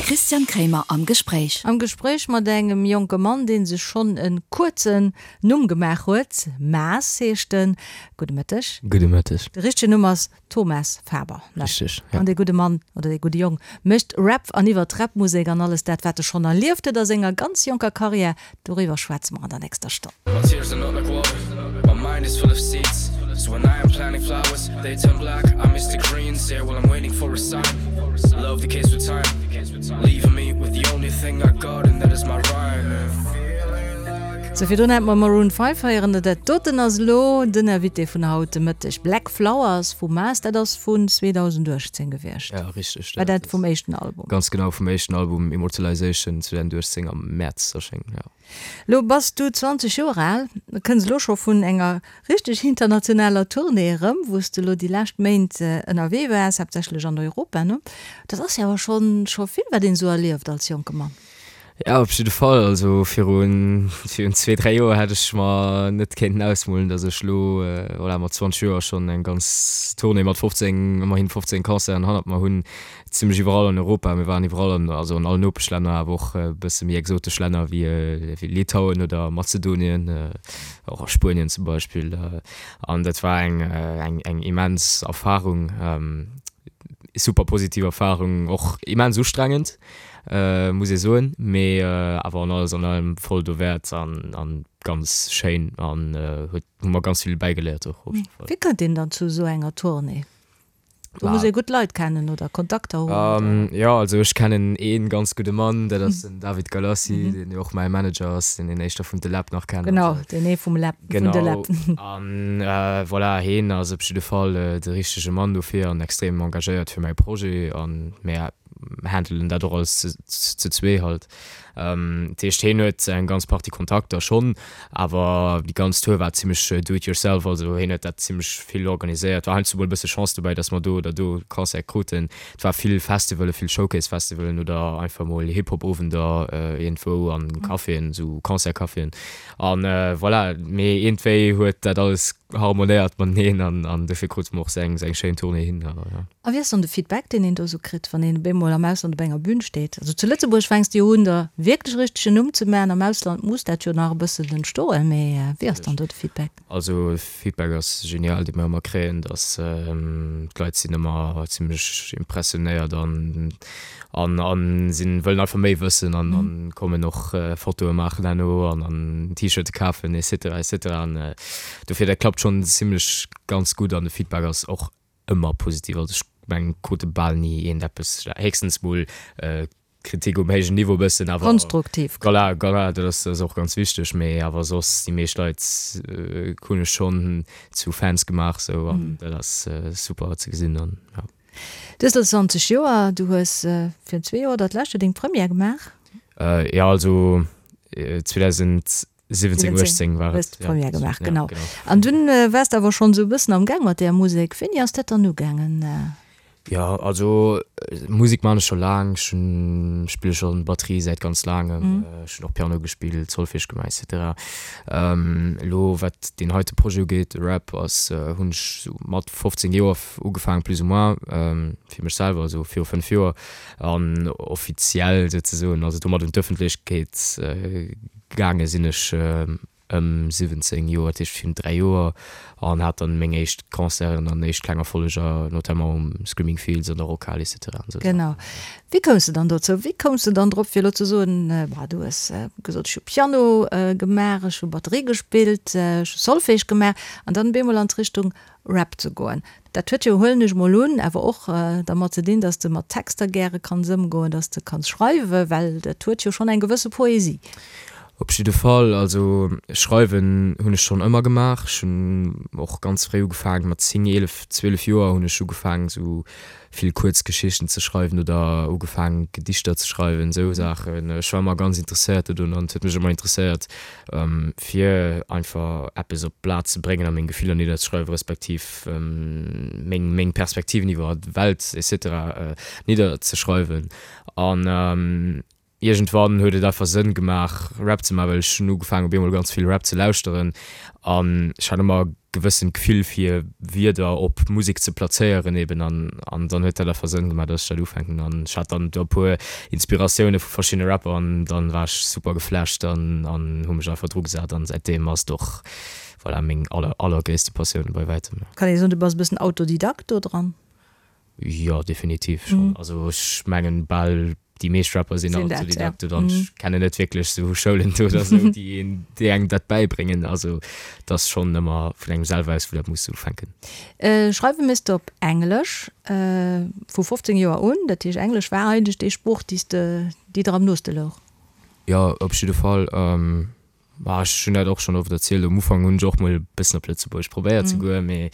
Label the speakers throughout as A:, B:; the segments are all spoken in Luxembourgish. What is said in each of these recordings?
A: Christian Kremer am Gespréich.
B: Am Gespréich mat engem jonke Mann, dee sech schonn e kuerzen Numm gemaach huet. Maas heescht en. Gudde Mëtteg.
C: Gudde Mëtteg.
B: De richtegen Numm ass Thomas Faber, ne?
C: Richteg, ja.
B: An dee gudde Mann oder dee gudde Jong mécht Rap an iwwer d'Rap-Musek an alles dat, wat e schonn erlieft huet a senger ganz jonker Karriär, doriwwer schwätze mer an der nächster Stonn.
D: My tears are not like water, my mind is full of seeds So when I am planting flowers, they turn black I miss the greens, yeah, while I'm waiting for a sign Love decays with time, leaving me with the only thing I got And that is my rhyme
B: Sou, virdrun hate mer Maroon 5 héieren. Dat doten ass elo den Invité vun haut de Mëtteg. Black Flowers vu Maas, dat ass vun 2018 gewiescht.
C: Ja, richteg.
B: War dat vum éischten Album?
C: Ganz genau, vum éischten Album Immortalization 2018 am Mäerz erschéngt, ja.
B: Lo bass du 20 Joer al, kënns elo scho vun enger richteg internationaler Tournée erëm, wou s de elo déi lescht Méint ënnerwee waars, haaptsächlech an Europa, ne? Dat ass jo awer schonn scho vill, wat een esou erlieft als jonke Mann.
C: Ja, op jidde Fall. Also virun virun zwee, dräi Joer hätt ech mer net kéinten ausmolen, datt ech elo, voilà, mat 20 Joer schonn eng ganz Tournée mat 15, ëmmerhin 15 Concerten hannert mer hunn, zimlech iwwerall an Europa. Mir waren iwwerall an, also an allen Nopeschlänner, awer och e bësse méi exotesch Länner wéi wéi Litauen oder Mazedonien, och a Spuenien zum Beispill. An dat war eng eng eng immens Erfarung, super positiv Erfarung, och immens ustrengend. Muss ee soen, mee awer an alles an allem voll dowäert an an ganz schéin an huet hu mer ganz vill bäigeléiert och op jidde
B: Fall. Wéi kënnt een dann zu esou enger Tournée? Do muss ee gutt Leit kennen oder Kontakter hunn oder?
C: Jo, also ech kennen ee ganz gudde Mann, dat ass den David Galassi, deen jo och mäi Manager ass, deen een éischter vun De Läb nach kennt.
B: Genau, deen ee vum Läb, vun De Läb.
C: Genau, an voilà, heen ass op jidde Fall de richtege Mann dofir an extrem engagéiert fir mäi Projet an mär handelen dat och alles ze zwee halt. Dat heescht heen huet eng ganz Partie Kontakter schonn, awer déi ganz Tour war zimmlech do it yourself, also heen huet dat zimmlech vill organiséiert. War heiansdo mol e bësse Chance dobäi, datt mer do oder do Concert kruten. Et war vill Festivalen, vill Showcase-Festivalen oder einfach mol Hip-Hop-Owender iergendwou an Caféen, esou Concert-Caféen an voilà. Mee iergendwéi huet dat alles harmonéiert mateneen an an dofir krute mer och sou eng sou eng schéin Tournée hin. Ja.
B: A wéi ass dann de Feedback, deen een do sou kritt, wann een op eemol am Ausland op enger Bühn steet? Also zu Lëtzebuerg fänks de jo un, der wierklech e richtegen Numm ze maachen, am Ausland muss dat jo nach e bëssen entstoen, mee wéi ass dann do de Feedback?
C: Also de Feedback ass genial, dee mer ëmmer kréien, dass d'Leit sinn ëmmer zimmlech impressionéiert an An an sinn wëllen einfach méi wëssen an an kommen och Fotoe maachen herno an an T-Shirte kafen etc etc an dofir dat klappt schonn zimlech ganz gutt an de Feedback ass och ëmmer positiv. Also ech mengen krute bal ni eent eppes, héchstens mol Kritik um héijen Niveau bëssen awer
B: Konstruktiv.
C: Voilà, voilà, dat ass dat ass och ganz wichteg, mee awer soss déi meescht Leit hunn ech schonn zu Fans gemaach sou an dat ass super ze gesinn an jo.
B: Du hues elo 20 Joer, du hues virun zwee Joer oder d'lescht Joer deng Première gemaach?
C: Jo, also 2017, 18 war et.
B: Hues d'Première gemaach, genau. An dunn waars de awer schonn esou e bëssen am Gaang mat där Musek. Wéini ass dat dann ugaangen?
C: Jo, also Musek man ech scho laang. Ech hunn, spille schonn Batterie säit ganz laangem. Ech hunn och Piano gespillt, Solfège gemaach et cetera. Elo wat deen heite Projet ugeet, de Rap, ass, hunn ech sou mat 15 Joer ugefaangen plus ou moins fir mech selwer, esou viru 5 Joer an offiziell souzesoen, also domat un d'Ëffentlechkeet gaange sinn ech ëm 17 Joer, dat heescht virun 3 Joer an hat dann meng éischt Concerten an éischt kleng Erfolleger, notamment um Screaming Fields an der Rockhal et cetera an esou Saachen.
B: Genau. Wéi koums de dann dozou? Wéi koums de dann drop fir elo ze soen, bah du hues gesot ech hu Piano gemaach, ech hu Batterie gespillt, ech hu Solfège gemaach an dann op eemol an d'Richtung Rap ze goen. Dat huet jo, huelen ech mol un, awer och dermat ze dinn, dass de mat Texter gäre kanns ëmgoen, dass de kanns schreiwen, well dat huet jo schonn eng gewësse Poesie.
C: Op jidde Fall. Also schreiwen hunn ech schonn ëmmer gemaach. Ech hunn och ganz fréi ugefaangen, mat 10, 11, 12 Joer hunn ech ugefaangen esou vill kuerz Geschichten ze schreiwen oder ugefaangen Gedichter ze schreiwen, esou Saachen. Ech war ëmmer ganz interesséiert dodun an et huet mech ëmmer interesséiert fir einfach eppes op d'Blat ze bréngen a meng Gefiller nidderzeschreiwen, respektiv meng meng Perspektiven iwwer d'Welt et cetera nidderzeschreiwen. An iergendwann huet et einfach Sënn gemaach Rap ze maachen, well ech hunn ugefaangen op eemol ganz vill Rap ze lauschteren an ech hat ëmmer. gewëssent Gefill fir Wierder op Musek ze plazéieren eben an an dann huet dat einfach Sënn gemaach, dass ech dat ufänken an ech hat dann do e puer Inspiratioune vu verschiddene Rapper an dann war ech super geflasht an an hu mech einfach dru gesat an säitdeem ass et och voilà meng aller allergréisste Passioun bei wäitem.
B: Kann ee soen, du bass e bëssen Autodidakt do dran?
C: Jo, definitiv schonn. Also ech mengen bal déi meescht Rapper sinn Autodidakte dann. Ech kennen net wierklech sou Schoulen oder sou, déi een, déi engem dat bäibréngen. Also et ass schonn ëmmer vun engem selwer aus, wou dat muss ufänken.
B: Schreiwe méchs de op Englesch vu 15 Joer un. Dat heescht Englesch war eigentlech déi Sprooch, déi s de, déi der am nooste louch.
C: Jo, op jidde Fall. Ma ech hunn dat och schonn oft erzielt, um Ufank hunn ech och mol e bëssen op Lëtzebuergesch probéiert ze goen, mee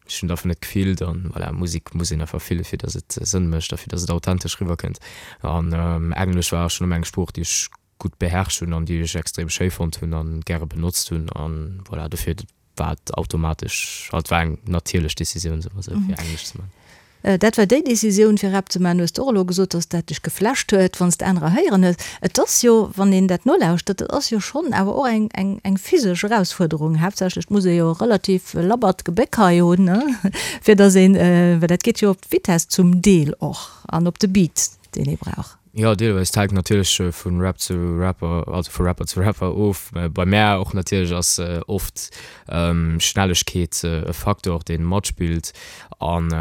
C: ech hunn et einfach net gefillt an voilà, Musek muss een einfach fille fir datt et Sënn mécht a fir datt et authentesch riwwer kënnt. An Englesch war schonn ëmmer eng Sprooch, déi ech gutt beherrscht hunn an déi ech extrem schéi fonnt hunn an gäre benotzt hunn an voilà, dofir war et automatesch, also et war eng natierlech Decisioun, soe mer esou, fir Englesch ze man.
B: Dat war déi Decisioun fir Rap ze man. Hues de och elo gesot, dass dat dech geflasht huet, wann s de anerer héieren hues. Et ass jo, wann een dat nolauschtert, et ass jo schonn awer och eng, eng, eng physesch Erausfuerderung. Haaptsächlech muss ee jo e relativ labbert Gebéck hei hunn, ne, fir dass een, well dat geet jo op d'Vitess zum Deel och an op de Beat, deen ee brauch.
C: Jo, deelweis. Et hänkt natierlech vu Rap zu Rapper, also vu Rapper zu Rapper of. Bei mär och natierlech ass oft Schnellegkeet e Faktor, dee matspillt. An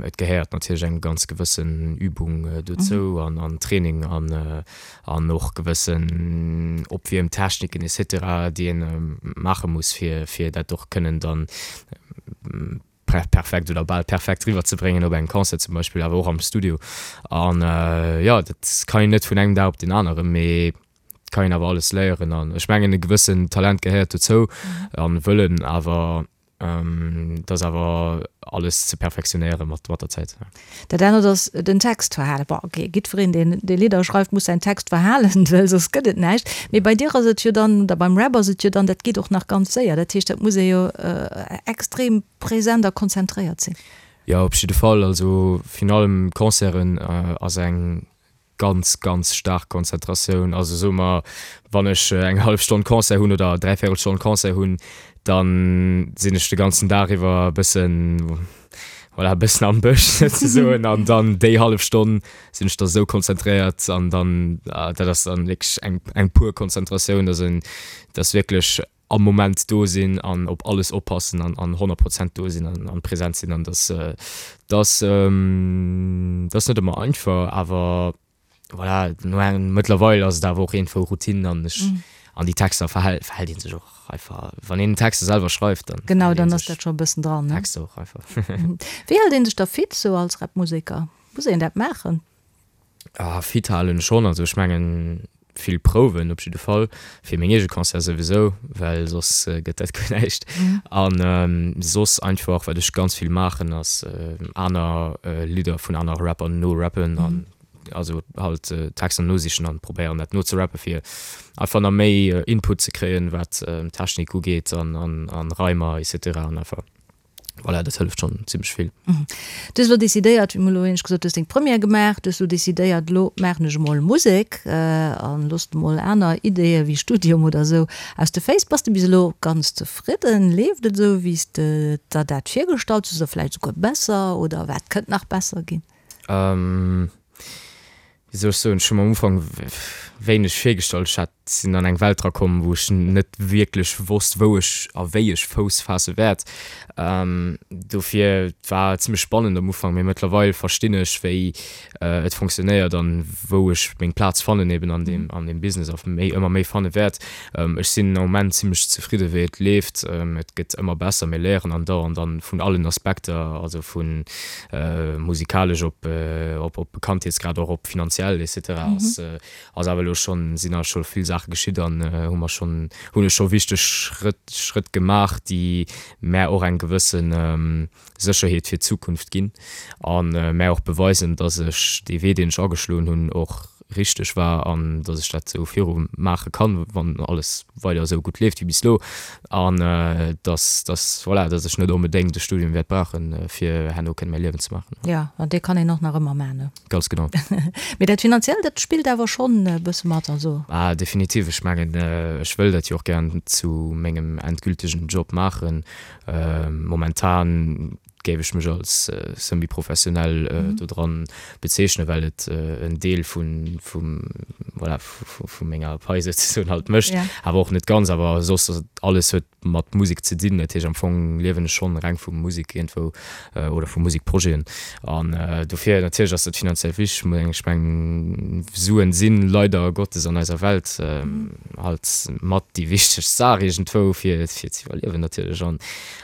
C: et gehéiert natierlech eng ganz gewëssen Übung dozou an Training an och gewëssen Opwiermtechniken et cetera, déi ee maache muss, fir dat och kënnen dann perfekt oder bal perfekt riwwer ze bréngen op engem Concert zum Beispill, awer och am Studio. An jo, dat kann een net vun engem Dag op deen aneren, mee et kann een awer alles léieren. An ech mengen e gewëssen Talent gehéiert dozou an Wëllen, awer et ass awer alles ze perfektionéiere mat der Zäit.
B: Dat anert ass den Text verhalen. Bon, ok, jiddwereen, deen dee Lidder schreift, muss säin Text verhalen, well soss gëtt et näischt. Mee bei dir ass et jo dann, oder beim Rap ass et jo dann, dat geet och nach ganz séier. Dat heescht, dat muss ee jo extrem present a konzentréiert sinn.
C: Jo, op jidde Fall. Also virun allem Concerten ass eng ganz, ganz staark Konzentratioun. Also soe mer, wann ech eng hallef Stonn Concert hunn oder dräivéierel Stonn Concert hunn, da sinn ech de ganzen Dag iwwer e bëssen, voilà, e bëssen am Bësch souzesoen. An dann déi hallef Stonn sinn ech da sou konzentréiert an dann, dat ass dann wierklech eng, eng pur Konzentratioun, dass een, dass wierklech am Moment do sinn an op alles oppassen an an 100 Prozent do sinn an an präsent sinn an dass dass dass net ëmmer einfach, awer voilà no engem mëttlerweil ass et awer och iergendwou Routine an ech an déi Texter verhält verhält ee sech och einfach wann een Texter selwer schreift
B: dann Genau, dann ass dat scho e bëssen dran, ne?
C: Texter och einfach.
B: Wéi hält ee sech da fit sou als Rapmuseker? Muss een dat maachen?
C: Ah, fit halen schonn. Also ech mengen vill Prouwen op jidde Fall, fir meng eege Concerte souwisou, well soss gëtt dat guer näischt. An soss einfach wat ech ganz vill maachen ass aner Lidder vun anere Rapper norappen an also halt Texter nosichen an probéieren dat nozerappen, fir einfach nach méi Input ze kréien wat Technik ugeet an Reimer et cetera an einfach. Voilà, dat hëlleft schonn zimmlech vill.
B: Du hues elo decidéiert, wéi mer elo éinescht gesot, du hues deng Première gemaach, du hues elo decidéiert, elo maachen ech emol Musek an looss emol aner Ideeë wéi Studium oder esou aus de Féiss. Bass de bis elo ganz zefridden? Leeft et esou, wéi s de der dat virgestallt hues oder vläicht esouguer besser oder wat kënnt nach besser ginn?
C: Wéi soll ech soen, ech hu mer am Ufank wéineg virgestallt. Ech hat, sinn an eng Welt drakomm, wou ech net wierklech wosst, wou ech a wéi ech Fouss faasse wäert. Dofir, et war zimmlech spannend am Ufank, mee mëttlerweil verstinn ech, wéi et fonctionnéiert an wou ech meng Plaz fannen eben an deem, an deem Business a méi, ëmmer méi fanne wäert. Ech sinn am Moment zimmlech zefridde wéi et leeft. Et gëtt ëmmer besser, mir léieren andauernd an vun allen Aspekter, also vun musikalesch op op Bekanntheetsgrad och op finanziell et cetera ass ass awer elo schonn sinn a scho vill Saache geschitt an hu mer schonn hunn ech scho wichteg Schrëtt Schrëtt gemaach déi mär och eng gewësse Sécherheet fir d'Zukunft ginn a mär och beweisen, datt ech dee Wee deen ech ageschloen hunn och. richteg war an dass ech dat esou viru maache kann, wann alles weider esou gutt leeft wéi bis elo an dass, dass, voilà, dass ech net onbedéngt e Studium wäert brauchen, fir herno kënne mäi Liewen ze maachen.
B: Jo, an dee kann een och nach ëmmer maachen, ne?
C: Ganz genau.
B: Mee dat Finanziellt, dat spillt awer schonn e bësse mat, also.
C: Ah, definitiv. Ech mengen, ech wëll dat jo och gären zu mengem endgültegen Job maachen. Momentan géif ech mech als semi-professionell dodran bezeechnen, well et en Deel vun, vum, voilà, vu menger Pai souzesoen halt mécht, awer och net ganz. Awer soss ass et, alles huet mat Musek ze dinn. Dat heescht am Fong liewen ech schonn reng vu Musek iergendwou oder vu Musekprojeten. An dofir natierlech ass dat finanziell wichteg. Ech mengen Suen si leider Gottes an eiser Welt halt mat déi wichtegst Saach iergendwou fir fir ze iwwerliewen natierlech. An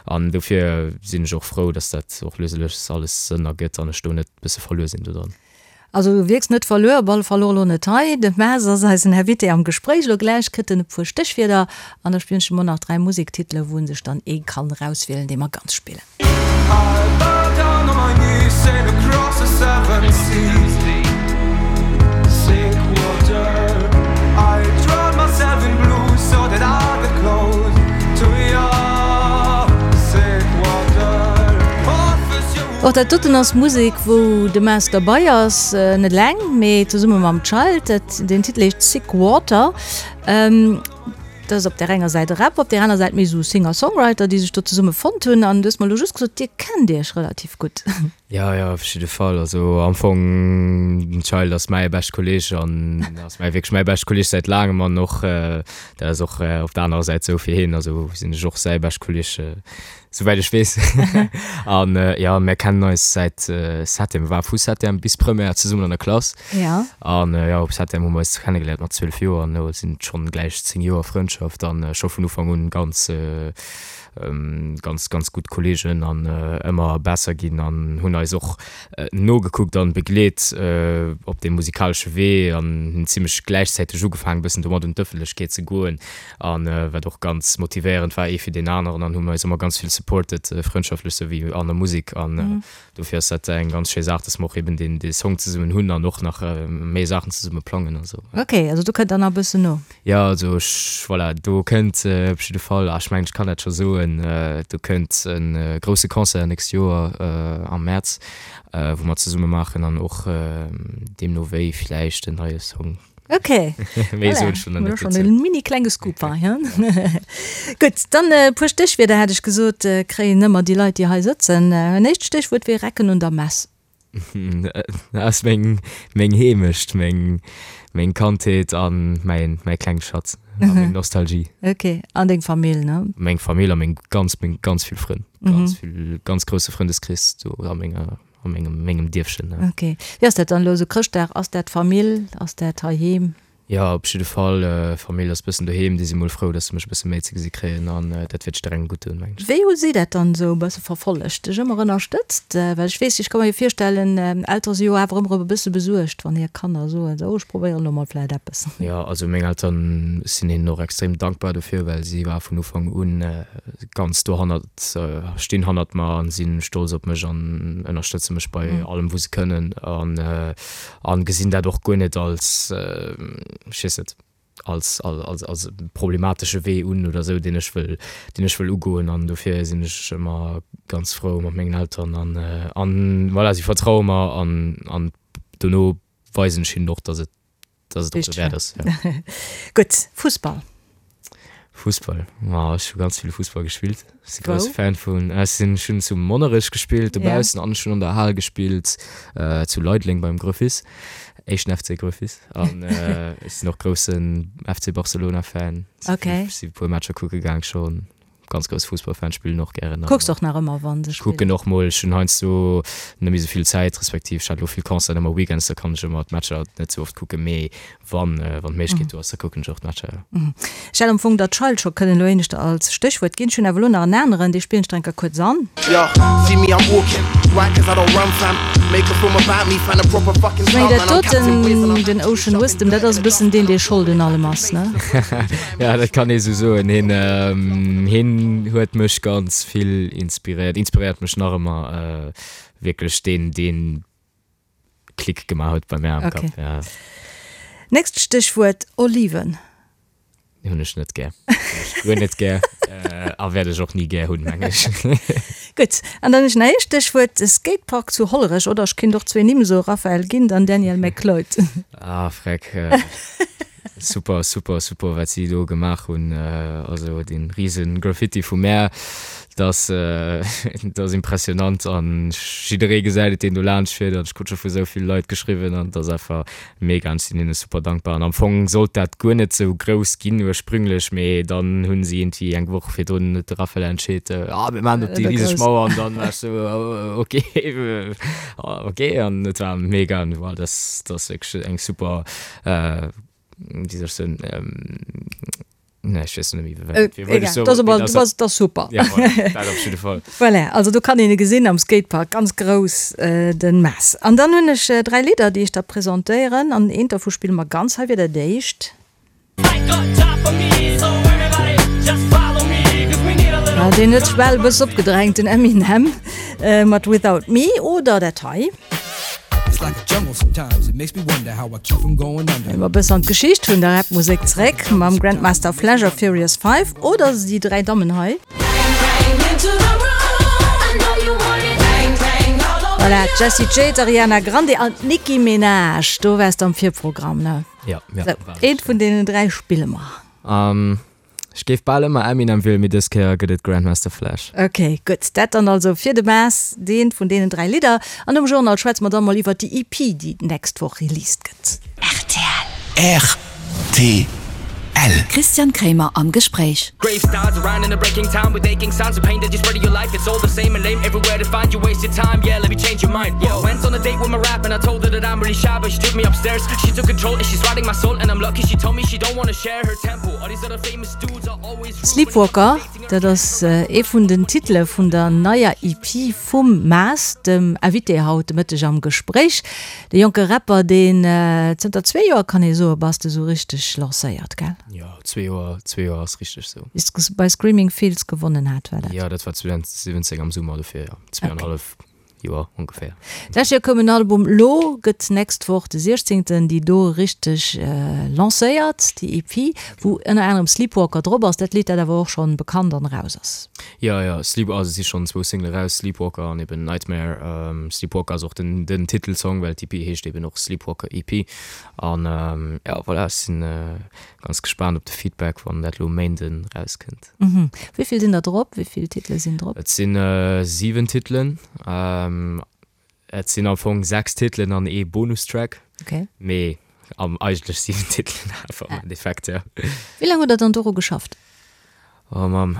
C: an dofir sinn ech och frou, datt dat och lues a lues alles Sënn ergëtt an ech do net bësse verluer sinn dodran.
B: Also du wierks net verluer, op alle Fall och elo net hei. De Maes ass eisen Invité am Gespréich. Elo gläich kritt en e puer Stéchwierder an da spillen ech em och nach 3 Musektitele wou en sech dann ee kann erauswielen, dee mer ganz spillen. Och dat doten ass Musek wou de Maes derbei ass, net eleng, mee zesumme mam Child. Dat den Titel heescht Sick Water. Dat ass op där enger Säit e Rap, op där aner Säit méi esou Singer-Songwriter, déi sech do zesumme fonnt hunn. An du hues mer elo just gesot, dir kennt iech relativ gutt.
C: Jo, jo, op jidde Fall. Also am Fong, den Child ass mäi beschte Kolleeg an ass mäi wierklech mäi beschte Kolleeg säit laangem an och dat ass och op der anerer Säit esou fir hien, also sinn ech och säi beschte Kolleeg. Souwäit ech weess. An jo, mär kennen eis säit Septième, war vu Septième bis Première zesummen an der Klass.
B: Ja.
C: An jo, op Septième hu mer eis kennegeléiert mat 12 Joer an elo sinn et schonn gläich 10 Joer Frëndschaft an scho vun Ufank un ganz, ganz, ganz gutt Kolleegen an ëmmer besser ginn an hunn eis och nogekuckt an begleet op deem musikalesche Wee an hunn zimmlech gläichzäiteg ugefaangen e bëssen domat un d'Ëffentlechkeet ze goen. An wat och ganz motivéierend war, ee fir deen aneren, an hu mer eis ëmmer ganz vill supported, frëndschaftlech souwéi an der Musek. An dofir ass dat eng ganz schéi Saach, dass mer och eben deen dee Song zesummen hunn an och nach méi Saachen zesumme plangen a sou.
B: Ok, also do kënnt dann nach e bëssen no.
C: Jo, also ech, voilà, do kënnt op jidde Fall, a ech mengen, ech kann dat scho soen, do kënnt e grousse Concert nächst Joer am Mäerz, wou mer zesumme maachen an och deemno wéi villäicht en neie Song.
B: Ok. Méi soen ech dann net dozou. En mini klenge Scoop hei, hein? Gutt, dann e puer Stéchwierder hat ech gesot, kréien ëmmer déi Leit, déi hei sëtzen. En éischt Stéchwuert wier Recken un der Mess.
C: Dat ass meng, meng Heemecht, meng, meng Kandheet an mäin, mäi klenge Schatz a meng Nostalgie.
B: Ok, an deng Famill, ne?
C: Meng Famill a meng ganz, meng ganz vill Frënn. Ganz vill, ganz grousse Frëndeskrees do a menger. A mengem, mengem Dierfchen,
B: ne. Ok. Wéi ass dat dann elo esou Chrëschtdag? Ass dat Famill? Ass dat heiheem?
C: Jo, op jidde Fall. Famill ass bëssen doheem. Déi si mol frou, dass se mech e bësse méi ze gesi kréien an dat wäert jidderengem gutt doen, mengen
B: ech. Wéi hu si dat dann esou e bësse verfollegt? Dech ëmmer ënnerstëtzt? Well ech weess, ech ka mer jo virstellen, Eltere si jo awer ëmmer e bësse besuergt, wann hir Kanner soen, esou, ech probéieren elo mol vläit eppes.
C: Jo, also meng Elteren, ech sinn hinnen och extrem dankbar dofir, well si war vun Ufank un ganz dohannert. Stinn hannert mer an sinn stolz op mech an ënnerstëtze mech bei allem wou se kënnen an an gesinn dat och guer net als, ech weess net, als als als problematesche Wee un oder sou deen ech wëll deen ech wëll ugoen an dofir sinn ech ëmmer ganz frou mat mengen Elteren an an voilà si vertraue mer an an dono weisen ech hinnen och dass et Dass et och derwäert ass,
B: ja. Gutt, Fussball.
C: Fussball, ma ech hu ganz vill Fussball gespillt. Ech si grousse Fan vun, ech sinn, ech hunn zu Monnerech gespillt dobaussen an ech hunn an der Hal gespillt zu Leideleng beim Gröfis, éischten FC Gröfis. An ech sinn och groussen FC Barcelona Fan.
B: Okay.
C: Ech si e puer Matcher kucke gaang schonn. Ganz grousse Fussballfan, spillen och gären.
B: Kucks och nach ëmmer wann se
C: spillen? Kucken och mol, ech hunn heiansdo net méi sou vill Zäit, respektiv ech hat elo vill Concerten ëmmer weekends, da kann ech ëmmer d'Matcher net sou oft kucken, mee wann wann d'Méiglechkeet do ass, da kucken ech och d'Matcher,
B: jo. Ech hätt am Fong der Child scho kënnen elo éineschter als Stéchwuert ginn. Ech hunn awer elo nach en aneren, dee spillen ech der eng Kéier kuerz an.
D: Yo, see me I'm walking, right cause I don't run fam Make a film about me, find a proper fucking
B: Ech
D: stunt
B: mengen dat
D: man I'm Captain Wiz and
B: doten,
D: I'm
B: den Ocean Wisdom, dat ass e bëssen deen, dee Schold un allem ass, ne?
C: Ja, dat kann ee sou soen. Hien, hien huet mech ganz vill inspiréiert, inspiréiert mech nach ëmmer. Wierklech deen, deen Klick gemaach huet bei mär am
B: Okay.
C: Kapp, ja.
B: Nächst Stéchwuert, Oliven.
C: Hunn ech net gär. Hunn ech guer net gär a wäert ech och ni gär hunn, meng ech.
B: Gutt, an dann hunn ech nach ee Stéchwuert, Skatepark zu Hollerech, oder ech kinnt och zwee Nimm soen, Raphael Gindt an Daniel McLeod.
C: Ah, freck. Super, super, super, wat si do gemaach hunn. Also dee rise Graffiti vum Meer, dat ass impressionant an jidderee gesäit et, deen do laanscht fiert. An ech krut scho vu sou vill Leit geschriwwen an et ass einfach Mega an ech sinn hinne super dankbar. An am Fong sollt dat guer net sou grouss ginn ursprünglech, mee dann hunn si iergendwéi eng Woch virdrun huet de Raphael entscheet, ah mir maachen op déi riseg Mauer an dann war ech sou ok ok an et war mega an voilà dat ass wierklech eng super wéi soll ech soen Nee, ech weess net méi, wéi
B: wéi wollt ech soen? Egal, dat ass, dat ass super.
C: Ja, voilà, dat op jidde Fall.
B: Voilà, also do kann een e gesinn am Skatepark, ganz grouss, den Mess. An dann hunn ech 3 Lidder, déi ech der presentéieren, an eent dervu spille mer ganz. Hei wier dat éischt. Ah, deen huet sech bal e bëssen opgedrängt, den Eminem mat Without Me, oder dat hei. Ginn mer e bëssen an d'Geschicht vun der Rap-Musek zeréck mam Grandmaster Flash a Furious 5 oder déi 3 Dammen hei. Voilà, d'Jessie J, d'Ariana Grande an d'Nicki Minaj. Do waars de am Virprogramm, ne?
C: Ja, ja. Sou,
B: eent vun deenen 3 spille mer.
C: Ech géif bal ëmmer Eminem wielen, mee dës Kéier gëtt et Grandmaster Flash.
B: Ok, gutt. Dat dann also fir de Maas, eent vun deenen 3 Lidder. An nom Journal schwätze mer dann mol iwwert déi EP, déi d'nächst Woch released gëtt.
A: Rtl. Rtl. Christian Kremer am Gespréich.
B: Sleepwalker, dat ass ee vun den Titele vun der neier EP vum Maas, dem Invité haut de Mëtteg am Gespréich. De jonke Rapper, deen zënter zwee Joer, kann ee soen, bass de sou richteg lancéiert, gell?
C: Jo, zwee Joer, zwee Joer ass richteg sou.
B: Wéi s de bei Screaming Fields gewonnen hat, war dat?
C: Jo, dat war 2017 am Summer, dofir jo, zweeanhallef. Joer ongeféier.
B: D'lescht Joer koum en Album, lo gëtt d'nächst Woch de 16. déi do richteg lancéiert, déi EP, wou ënner anerem Sleepwalker drop ass, dat Lidd dat awer och schonn bekannt an eraus ass.
C: Jo, jo, Sleep, also et si schonn zwou Single eraus, Sleepwalker an eben Nightmare. Sleepwalker ass och den den Titelsong, well d'EP heescht eben och Sleepwalker EP. An jo, voilà, ech sinn ganz gespaant op de Feedback, wann dat lo e Méinden erauskënnt.
B: Wéi vill sinn der drop? Wéi vill Titele sinn drop?
C: Et si 7 Titelen. Et sinn am Fong 6 Titelen an ee Bonustrack.
B: Okay.
C: Mee am eigentlech 7 Titelen awer am Endeffekt, ja.
B: Wéi laang hutt der dann doru geschafft?
C: Oh Mamm,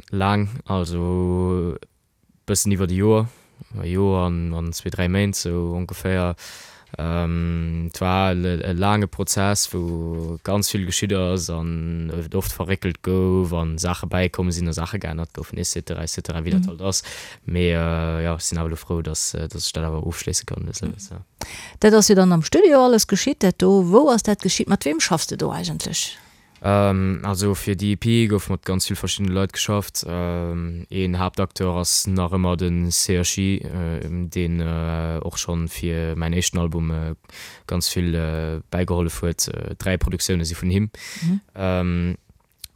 C: laang. Also Bëssen iwwert e Joer, e Joer an zwee, dräi Méint sou ongeféier. Et war e laange Prozess, wou ganz vill geschitt ass an et oft verréckelt gouf a Saache bäikomm sinn a Saache geännert goufen et cetera, et cetera, wéi dat halt ass. Mee jo, ech sinn awer elo frou, datt ech dat awer ofschléisse kann lues a lues, jo.
B: Dat ass jo dann am Studio alles geschitt, dat do. Wou ass dat geschitt? Mat weem schaffs de do eigentlech?
C: Also fir déi EP gouf mat ganz vill verschiddene Leit geschafft. Een Haaptacteur ass nach ëmmer de CHI, deen och schonn fir mäin éischten Album ganz vill bäigehollef huet. 3 Produktioune si vun him.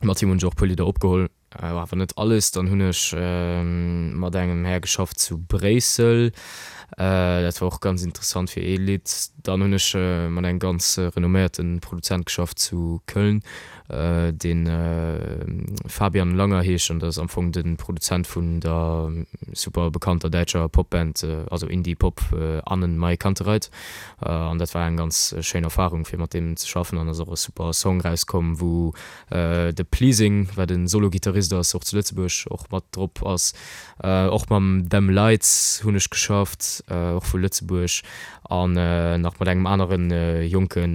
C: Mat him hunn ech och e puer Lidder opgeholl. Awer net alles. Dann hunn ech mat engem Här geschafft zu Bréissel. Dat war och ganz interessant fir ee Lidd. Dann hunn ech mat engem ganz renomméierte Produzent geschafft zu Köln, dee Fabian Langer heescht an dat ass am Fong de Produzent vun der super bekannter däitscher Popband, also Indie-Pop AnnenMayKantereit. An dat war eng ganz schéin Erfarung fir mat deem ze schaffen an ass och e super Song rauskomm, wou De Pleasing, wat e Solo-Gittarist ass, och zu Lëtzebuerg och mat drop ass. Och mam Them Lights hunn ech geschafft, och vu Lëtzebuerg. An nach mat engem anere jonke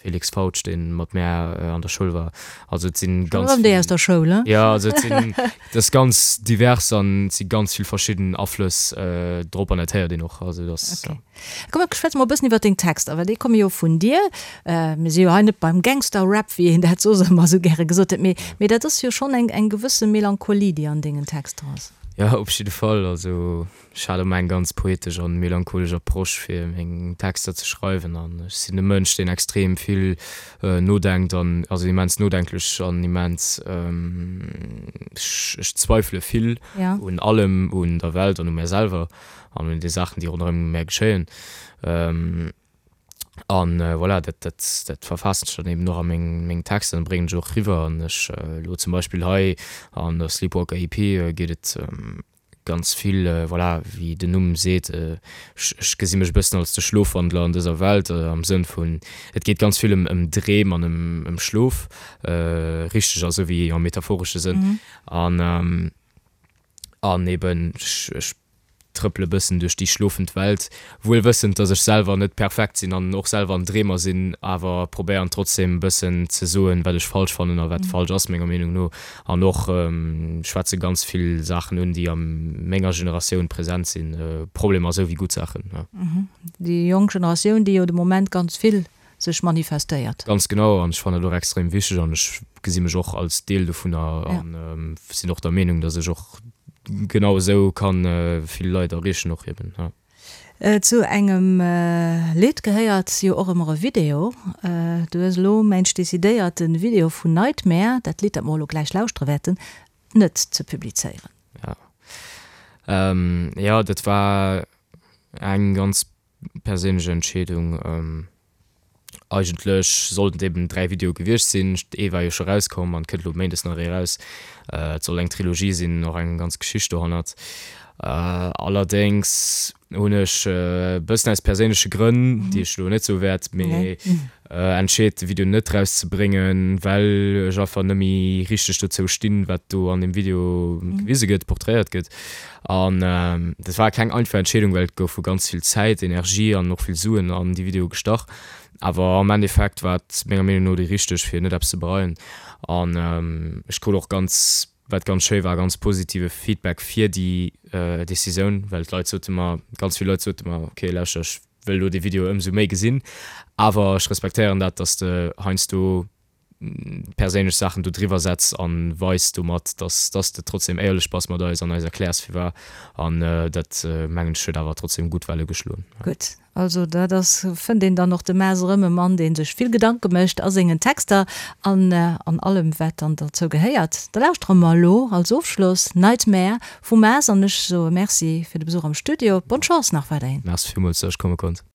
C: Felix Fautsch, dee mat mär an der Schoul war. Also et sinn ganz
B: vill. Erëm déi aus der Schoul,
C: he? Jo, also et sinn, et ass ganz divers an et si ganz vill verschidden Aflëss drop an dat héiert een och. Also et ass,
B: jo. Komm mir schwätze mol e bëssen iwwer deng Texter, well déi komme jo vun dir. Mir si jo hei net beim Gangster-Rap, wéi een dat soss ëmmer esou gäre gesot huet, mee, mee dat ass jo schonn eng, eng gewësse Melancholie, déi an dengen Texter ass.
C: Jo, op jidde Fall. Also ech hat ëmmer eng ganz poetesch an melancholesch Approche fir meng Texter ze schreiwen an ech sinn e Mënsch deen extrem vill nodenkt an also immens nodenklech an immens ech ech zweifele vill un allem, un der Welt an u mär selwer an un de Saachen déi ronderëm mär geschéien. An voilà, dat, dat, dat verfaassen ech dann eben och a meng, meng Texter an bréngen ech och eriwwer. An ech elo zum Beispill hei an der Sleepwalker EP geet et ganz vill, voilà, wéi den Numm seet, ech, ech gesi mech e bëssen als de Schlofwandler an dëser Welt, am Sënn vun, et geet ganz vill ëm, ëm Dreem an ëm, ëm Schlof, richteg a souwéi am metaphoresche Sënn. An, an eben ech, ech trëppele bëssen duerch déi schlofend Welt, wuel wëssend, dass ech selwer net perfekt sinn an och selwer en Dreemer sinn, awer probéieren trotzdem bëssen ze soen, wat ech falsch fannen a wat falsch ass menger Meenung no an och schwätze ganz vill Saachen un, déi a menger Generatioun present sinn, Problemer esou wéi gutt Saachen.
B: Déi jonk Generatioun, déi jo de Moment ganz vill sech manifestéiert.
C: Ganz genau, an ech fannen dat och extrem wichteg an ech gesi mech och als Deel dovunner an sinn och der Meenung, datt ech och genau esou kann vill Leit erreechen och eben, ja.
B: Zu engem Lidd gehéiert jo och ëmmer e Video. Du hues elo mensch decidéiert de Video vun Nightmare, dat Lidd dat mer elo gläich lauschtere wäerten, net ze publizéieren.
C: Ja, jo dat war eng ganz Perséinlech Entscheedung. Eigentlech sollten et eben 3 Videoe gewiescht sinn. Ee war jo scho rauskomm an et kënnt elo méindes nach ee raus. Et soll eng Trilogie sinn, och eng ganz Geschicht dohannert. Allerdéngs hunn ech e bëssen aus perséinleche Grënn, déi ech elo net soe wäert, mee entscheet de Video net rauszebréngen, well ech einfach net méi richteg dozou stinn, wat do an deem Video gewise gëtt, porträiert gëtt. An dat war keng einfach Entscheedung, well et goufe ganz vill Zäit, Energie an och vill Suen an déi Videoe gestach. Awer am Endeffekt war et menger Meenung no déi richteg, fir net eppes ze bereien. An ech krut och ganz, wat ganz schéi war, ganz positive Feedback fir déi Decisioun, well d'Leit sote mer, ganz vill Leit sote mer, ok lauschter, ech wëll elo dee Video ëmsou méi gesinn, awer ech respektéieren dat, dass de heiansdo perséinlech Saachen do driwwer setz an weis domat, dass dass de trotzdem éierlech bass mat eis an eis erkläers firwar an dat mengen ech huet awer trotzdem gutt Welle geschloen.
B: Gutt, also dat ass, fënnt een dann och de Maas erëm, e Mann dee sech vill Gedanke mécht a sengen Texter an an allem wat dann derzou gehéiert. Da lauschtere mer elo als Ofschloss Nightmare vum Maas an ech soe Merci fir de Besuch am Studio. Bonne Chance nach weiderhin.
C: Merci villmools, dass ech komme konnt.